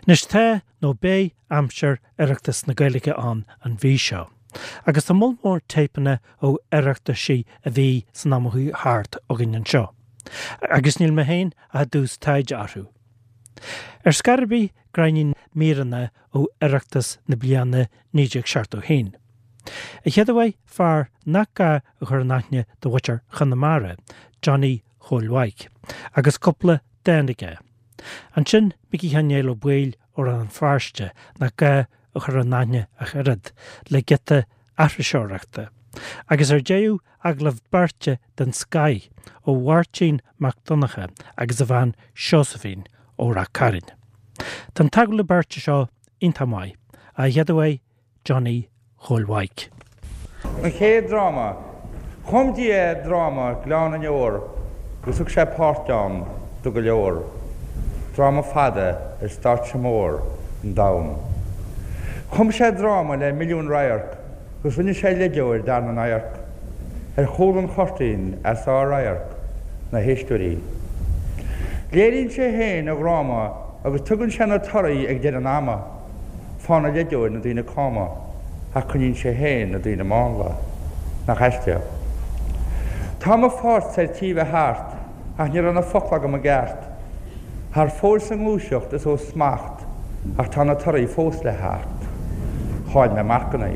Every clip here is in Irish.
Anois tá, nó beidh, aimsir Oireachtas na Gaeilge ann an mhí seo. Agus tá moll mór téipeanna ó Oireachtaisí a bhí san am a chuaigh thart againn anseo. Agus níl mé féin ach i dtús taighde orthu. Ar scor ar bith gráinnín míreanna ó Oireachtas na bliana 1971. An chéad uaidh, fear nach gá a chur in aithne do mhuintir Chonamara, Johnny Chóil Mhaidhc, agus cúpla dán aige. Ansin Micí Sheáin Néill Ó Baoill ó Rann na Feirste, nach gá a chur in aithne ach oiread, le giota aithriseoireachta. Agus ar deireadh, agallamh beirte den scoith ó Mháirtín Mac Donncha agus a bhean Seosaimhín ó Rath Cairn. Tá an t-agallamh beirte seo iontach maith. An chéad uaidh, Johnny Chóil Mhaidhc. An chéad dráma. Chum Dia dráma Gleann na nDeor agus thug sé páirt ann do go leor. Dráma fada ar stáitse mór an domhain. Chum sé dráma le milliúin radharc agus rinne sé leideoir d'fhear na n-adharc. Ar chúl an chuirtín as ár radharc, na héisteoirí. Léiríonn sé féin a dhráma agus tugann sé na torthaí ag deireadh an ama. Faigheann an leideoir na daoine cama ach coinníonn sé féin na daoine mánla. Nach aisteach. Tá mo pháirt ar tí bheith thart ach ní raibh na focla agam i gceart. Thar fóir sa ngluaiseacht is ó smacht ach tá na torthaí fós le theacht. Chaill mé marcanna.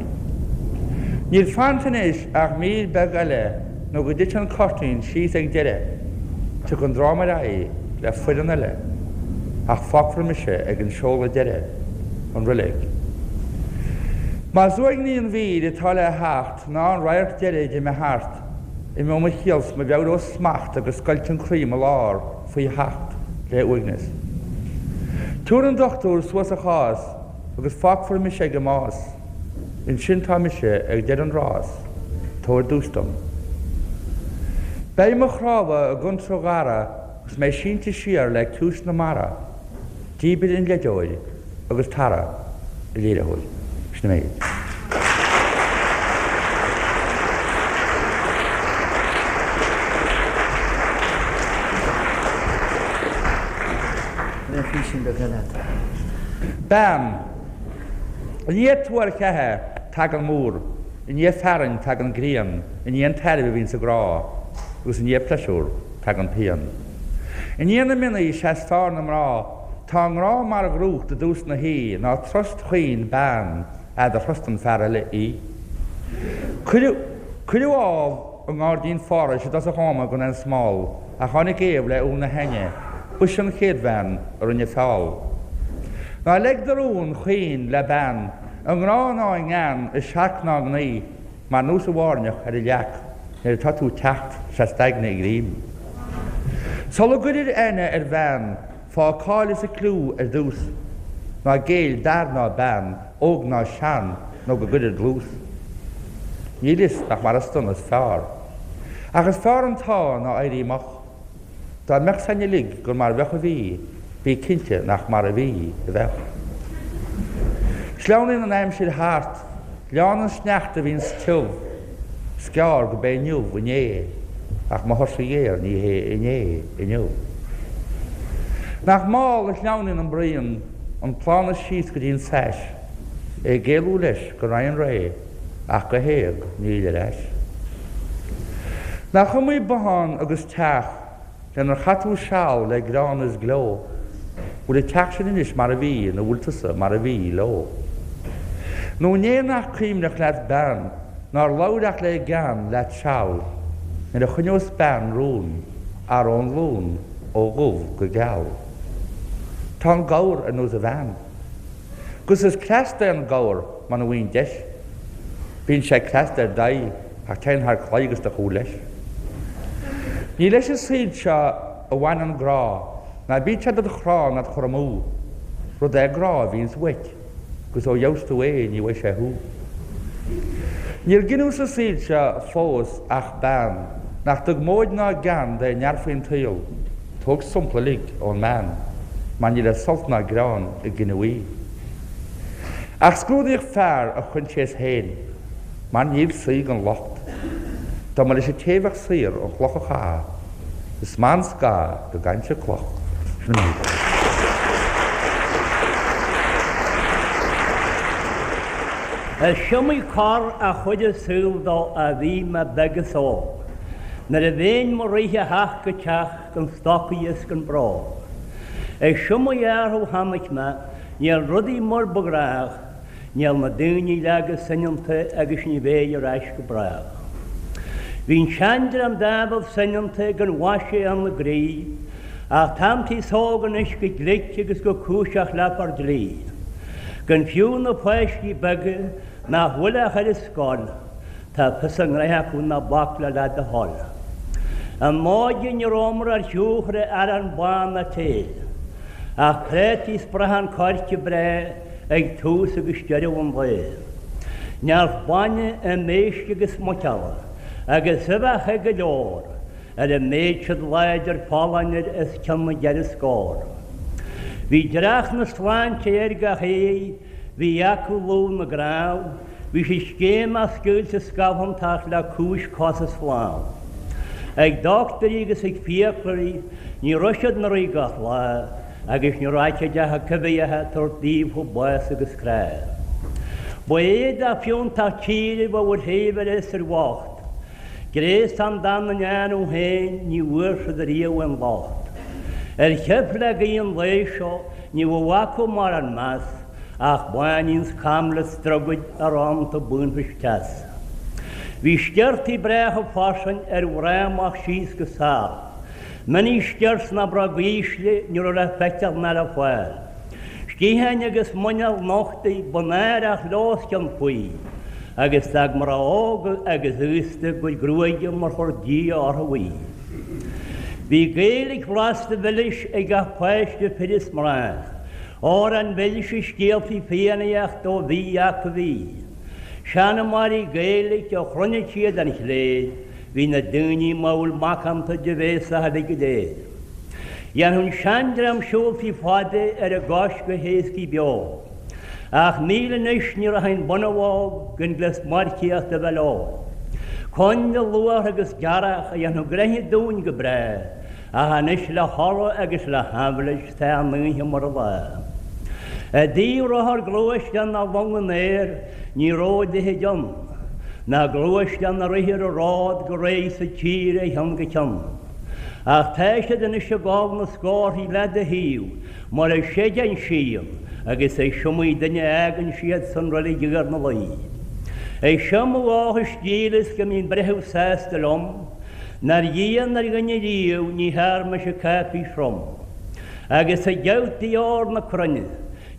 Níl fanta anois ach mír beag eile nó go dtiteann an cuirtín síos ag deireadh. Tiocfaidh an dráma ar aghaidh le foireann eile ach fágfar mise ag an seoladh deiridh, an roilig. Más uaigní an mhír atá le theacht ná an radharc deiridh d'imigh thart, imeoidh mo chiall 's mo mheabhair ó smacht agus scoilt an croí i mo lár faoi sheacht le uaigneas. Tabharfaidh an dochtúir suas a chás agus fágfar mise ag an mbás. Ansin tá mise ag deireadh an rás, tabhair duais dom. Beidh mo chnámha i gcontúirt ghearradh agus mé sínte siar le ciumhais na mara, díbir an leideoir agus Tara, a léiritheoir. Sin an méid. Bean. I ndiaidh tuar cheatha tagann múr, i ndiaidh fearthainn tagann grian, i ndiaidh an tairbhe a bhíonn sa ghrá, agus i ndiaidh pléisiúr tagann pian. I ndiaidh na mionnaí is ea is fearr na mná, tá an grá mar dhrúcht i dtús na haoi, ná trust chaoin bean fhad a thrustan fear eile í. Cuireadh Cuireadh Ádhamh i ngairdín Phárais i dtosach ama gan aon smál, ach tháinig Éabha le úll na haithne, b'ise an chéad bhean a rinne feall. Ná leig do rún chaoin le bean, i ngrá ná i ngean, i searc ná i ngnaoi, mar nós an bhairneach ar an leac nuair atá tú ag teacht 's d'aigne ag rím. Sula gcuirir aithne ar bhean, Faigh a cáil is a cliú ar dtús. Ná géill d'fhear ná bean, óg ná sean, nó go gcuirir dlús. Níl fhios nach mar is dona is fearr. Ach is fearr an t-ádh ná éirí moch. Dá mbeadh 's a'inn uilig gur mar bheadh a bhí, bí cinnte nach mar a bhí a bheadh. Sleamhnaíonn an aimsir thart. Leánn an sneachta a bhíonns tiubh. 'S gearr go b'é inniu inné, ach mo thuirse ghéar ní hé inné inniu. Nach mall a shleamhnaíonn an braon, an plána síos go dtí an tsais, é ag éalú leis go raghaidh an ré, ach go héag níl ar ais. Nach iomaí bothán agus teach lenar chaith tú seal le greann is gleo, bhfuil an teach sin anois mar a bhí nó bhfuil tusa mar a bhí leo? Nó an é nach cuimhneach leat bean nár labhair ach le gean leat seal nuair a choinneos bean rún athró an glún ó dhubh go geal? Tá an gabhar ar nós a bhean. 'Gus is cleas é an gabhar muna bhfaigheann deis. Bíonn sé cleasta ar d'aghaidh ach téann thar claí agus do chúl leis. Ní leis an saol seo a bhaineann grá, ná bíodh sé dod chrá ná 'd chur amú. Rud é grá a bhíonns uait, 'gus ó gheobhas tú é ní bhfaighidh sé thú. Níor gineadh sa saol seo fós ach bean nach dtug móid ná gean d'aon fhear faoin tsaol. Tóg sampla uilig ón mbean, mar ní le sult ná greann a gineadh í. Ach scrúdaíodh fear a choinsias féin, mar níl saoi gan locht. Dá mba leis an té bheadh saor an chloch a chaitheamh, is maith an scáth go gcainnse cloch. Sin an méid. Is iomaí cor a chuir an saol dó a bhí mé beag is óg, nuair a bheinn mo rith ó theach go teach gan stocaí is gan bróg. Is iomaí athrú a chonaic mé, níl rudaí mar ba ghnách, Níl na daoine lag is soineanta agus ní bheidh ar ais go brách. Bhí an seandream diabhal soineanta gan mhaise ina gcroí, ach tá an t-aos óg anois go glic agus go cúiseach le fir dlí. Gan fiú na páistí beaga nach bhfuil ach ar an scoil, tá fios a ngnoithe acu ná bac leo le do thoil. In m'óige ní rabhamar ar shiúl cha raibh arán bán ná tae, ach prátaí 's brachán coirce breá ag tús agus deireadh an lae. Neart bainne im éisc agus muiceola, agus uibheacha go leor, ar a mbeadh siad láidir folláin ar os cionn na gceithre scór. Bhí dreach na sláinte ar gach éinne, bhí acu lúth na gcnámh, bhí siad scéimeach scaoilte scamhantach le cúis cos is lámh. Ag dochtúirí agus ag fiaclóirí, ní raibh siad 'na rith gach lá, agus ní raibh cuid acu coimhthíoch ag tabhairt daofa bás agus crá. Ba éadach fiúntach tíre a bheadh ar shaibhir is ar bhocht. Gréasán dá ndéanamh féin ní bhfuair siad riamh aon locht. Ar sheif le gaoth an lae seo ní bheadh acu mórán meas ach báinín 's caimle 's drogaid arán to bainfis teas. Bhí sciortaí breátha fairsing ar mhná amach síos go sall. Mini skirts ná bróg ísle ní raibh le feiceáil ná le fáil. Sciatháin agus muineál nochta ba náireach leo os cionn faoi, agus d'fhág mná óga agus aosta a gcuid gruaige mar chuir Dia orthu í. Bhí Gaeilge bhlasta mhilis ag gach páiste fir is mná, amhráin mhilse scéaltaí Fiannaíochta ó bhí acu bhí. Seanmóirí Gaeilge a chluinfeadh siad an chléir, Bhí na daoine mall macánta de bhéasach uilig go léir. Dhéanfadh an seandream siúltaí fada ar a gcois go héascaí beo. Ach níl anois, ní rachainn bunabhóg gan gléas marcaíochta a bheith leo. Coinnle, luaithre agus gearrthach a dhéanfadh gnoithe dúinn go breá, ach anois le hola agus le haimhleas tá an oíche mar an lá. I dtaobh rothar gluaisteán ná long an aeir, Ní raibh a leithéid ann, ná gluaisteán a rith ar an ród go réidh sa tír ó cheann go ceann. Ach tá siad anois ag dul na scórthaí le do thaobh mar a séideann síon agus is iomaí duine a fhágann siad san reilig Iar na Laoi. Is seo mo dhóchas dílis go mbíonn breitheamh sásta liom, nár dhian ar dhuine riamh ní thear mise cáipéis throm. Agus ag geabhtaí óir na cruinne,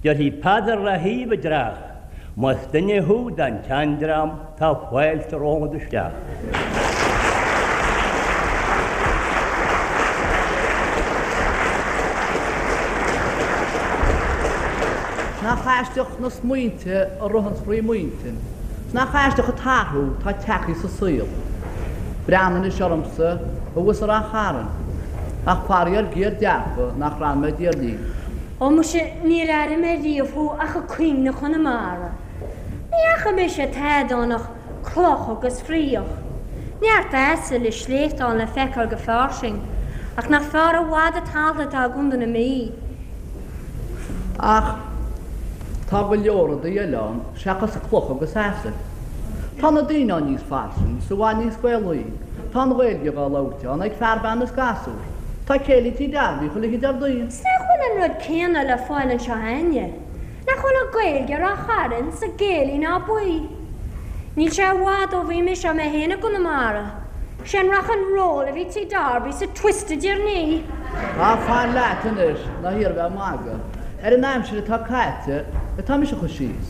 déarfaidh Peadar le haoibh i dtreach, Más duine thú den tseandream tá fáilte romhat isteach. Nach aisteach na smaointe a ritheanns frí m'intinn, 's nach aisteach an t-athrú tá tagtha sa saol. Breathnaigh anois ormsa thuas i Rath Chairn, ach faraor géar dearfa nach raibh mé i dTír Fhinn. Ó muise, níor airigh mé riamh thú ach ag caoineadh Chonamara. Ní fhaca mise tada ann ach cloch agus fraoch. Neart asail is sléibhte le feiceáil go fairsing, ach nach fearr i bhfad an talamh atá i gContae na Mí. Ach tá go leor rudaí eile ann seachas clocha agus asail. Tá na daoine ann níos fairsinge, is i bhfad níos Gaelaí. Tá an Ghaeilge dhá labhairt ann ag fear, bean is gasúr. Tá céilí Tí Darby chuile oíche Déardaoin. 'S nach bhfuil an rud céanna le fáil anseo a'inne? Nach bhfuil an Ghaeilge i Rath Chairn 's ag Gaelaí ná Buí? Níl sé i bhfad ó bhí mise mé féin i gConamara. 'Sé an rock and roll a bhí Tí Darby 's an twist idir ní. Tá fan leat anois, ná hiarr bheith ag magadh. Ar an aimsir atá caite atá mise a chur síos.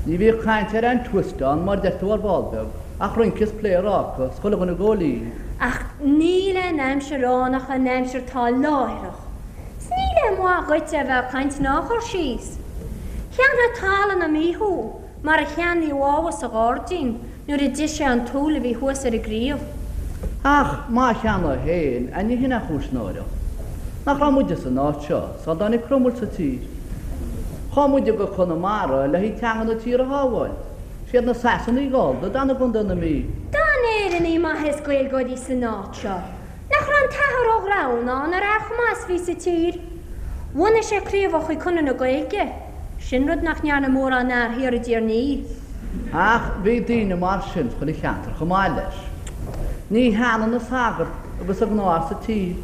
Ní bhíodh caint ar aon twist ann mar deir tú ar ball beag. Ach rince is pléaráca 's chuile dhuine ag góilín. Ach níl aon aimsir ann ach an aimsir atá láithreach. 'S níl aon mhaith dhuit é bheith ag caint ná a chur síos. Cheannfadh talamh na Mí thú, mar a cheannaíodh Ádhamh sa ghairdín nuair a d'ith sé an t-úll a bhí thuas ar an gcraobh. Ach má cheannóidh féin, a ní hin an chúis náireach. Nach raibh muide san áit seo sula dtáinig Cromail sa tír. Chuaigh muide go Conamara le haghaidh teanga na tíre a shábháil. Siad na Sasanaigh Gallda a d'fhan i gContae na Mí. D'fhan Éireannaigh maithe is Gaeilgeoirí san áit seo. Nach raibh an tAthair Ó Gramhnáin ar fhear chomh maith is bhí sa tír? Bhunaigh sé craobhacha Chonradh na Gaeilge. Sin rud nach ndearna mórán fhear thiar i dTír an Fhia. Ach bhí daoine mar sin chuile cheantar chomh maith leis. Ní hionann an sagart agus an gnáthfhear sa tír.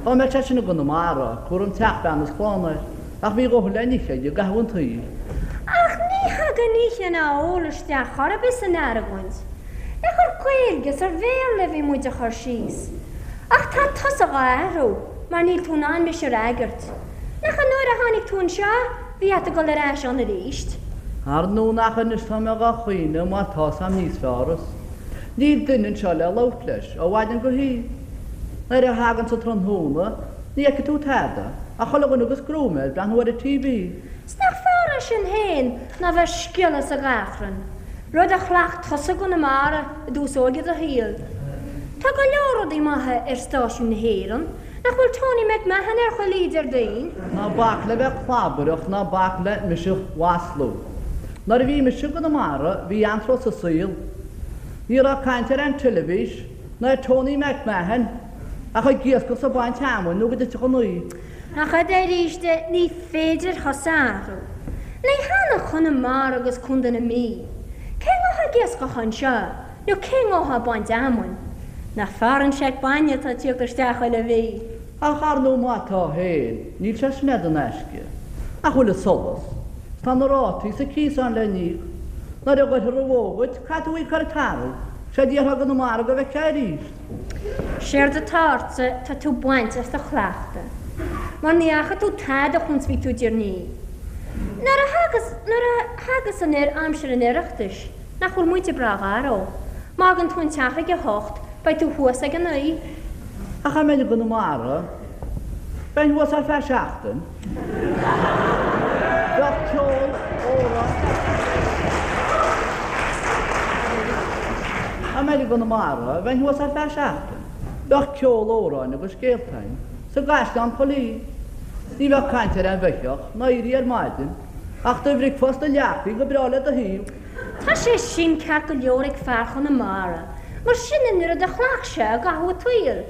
Dá mbeadh sé sin i gConamara, cúram teach, bean is clann air, ach bhí a dhóthain le n-ithe aige i gcaitheamh an tsaoil. Ach ní thagann ithe ná ól isteach chor ar bith san argóint. Nach ar Ghaeilge is ar Bhéarla a bhí muid a chur síos. Ach tá tusa dhá athrú mar níl tú in ann mise a fhreagairt. Nach an uair a tháinig tú anseo bhí ort a dhul ar ais ann aríst? Ar ndóigh nach anois tá mé dhá chaoineadh mar tá's a'm níos fearr is níl duine anseo le labhairt leis ó mhaidin go hoíche. Nuair a thaganns an tráthnóna ní fheicfidh tú tada ach chuile dhuine agus gruaim air ag breathnú ar an TV. 'S nach fearr é sin féin ná bheith sciolladh sa gachrann, rud a chleacht tusa i gConamara i dtús óige do shaoil. Tá go leor rudaí maithe ar stáisiún na hÉireann, nach bhfuil Tony McMahon ar chuile oíche Déardaoin? Ná bac le bheith clabaireach ná bac le mise a mhaslú. Nuair a bhí mise i gConamara bhí anró sa saol. Ní raibh caint ar an teilifís ná ar Tony McMahon ach ag iascach 's ag baint fheamainn nó go dtitfeadh an oíche. Ach arís, ní féidir thusa a athrú. Ní hionann Conamara agus Contae na Mí. Cé ngabhfá ag iascach anseo nó cé ngabhfá ag baint fheamainn? Nach fearr an seic bainne atá ag tíocht isteach chuile mhí? Ach ar ndóigh má tá féin, níl sé sin in aisce. Nach bhfuil an solas? 'S tá na rátaí 's an cíos ann le n-íoc. Nuair a ghoirfear an bhó dhuit, caithfidh tú í a chur ag tarbh. 'Sé déarfá i gConamara go bhfeicfeá arís. Séard atá ortsa, tá tú bainte as do chleachtadh. Mar ní fhaca tú tada chúns bhí tú i dTír an Fhia. Nuair a thagas, nuair a thagas anoir aimsir an Oireachtais, nach bhfuil muide breá garbh. Má fhágann tú an teach ag a hocht, beidh tú thuas ag a naoi. Ach dá mbeinn i gConamara, bheinn thuas ar feadh seachtain. Bheadh ceol, amhráin. Dá mbeinn i gConamara, bheinn thuas ar feadh seachtain. Bheadh ceol, amhráin agus scéalta a'inn sa gcaisleán chuile oíche. Ní bheadh caint ar aon bheithíoch ná éirí ar maidin, ach do bhricfeasta leagthaí go breá le do thaobh. Tá sé sin ceart go leor ag fear Chonamara, mar sin an rud a chleacht sé i gcaitheamh a tsaoil.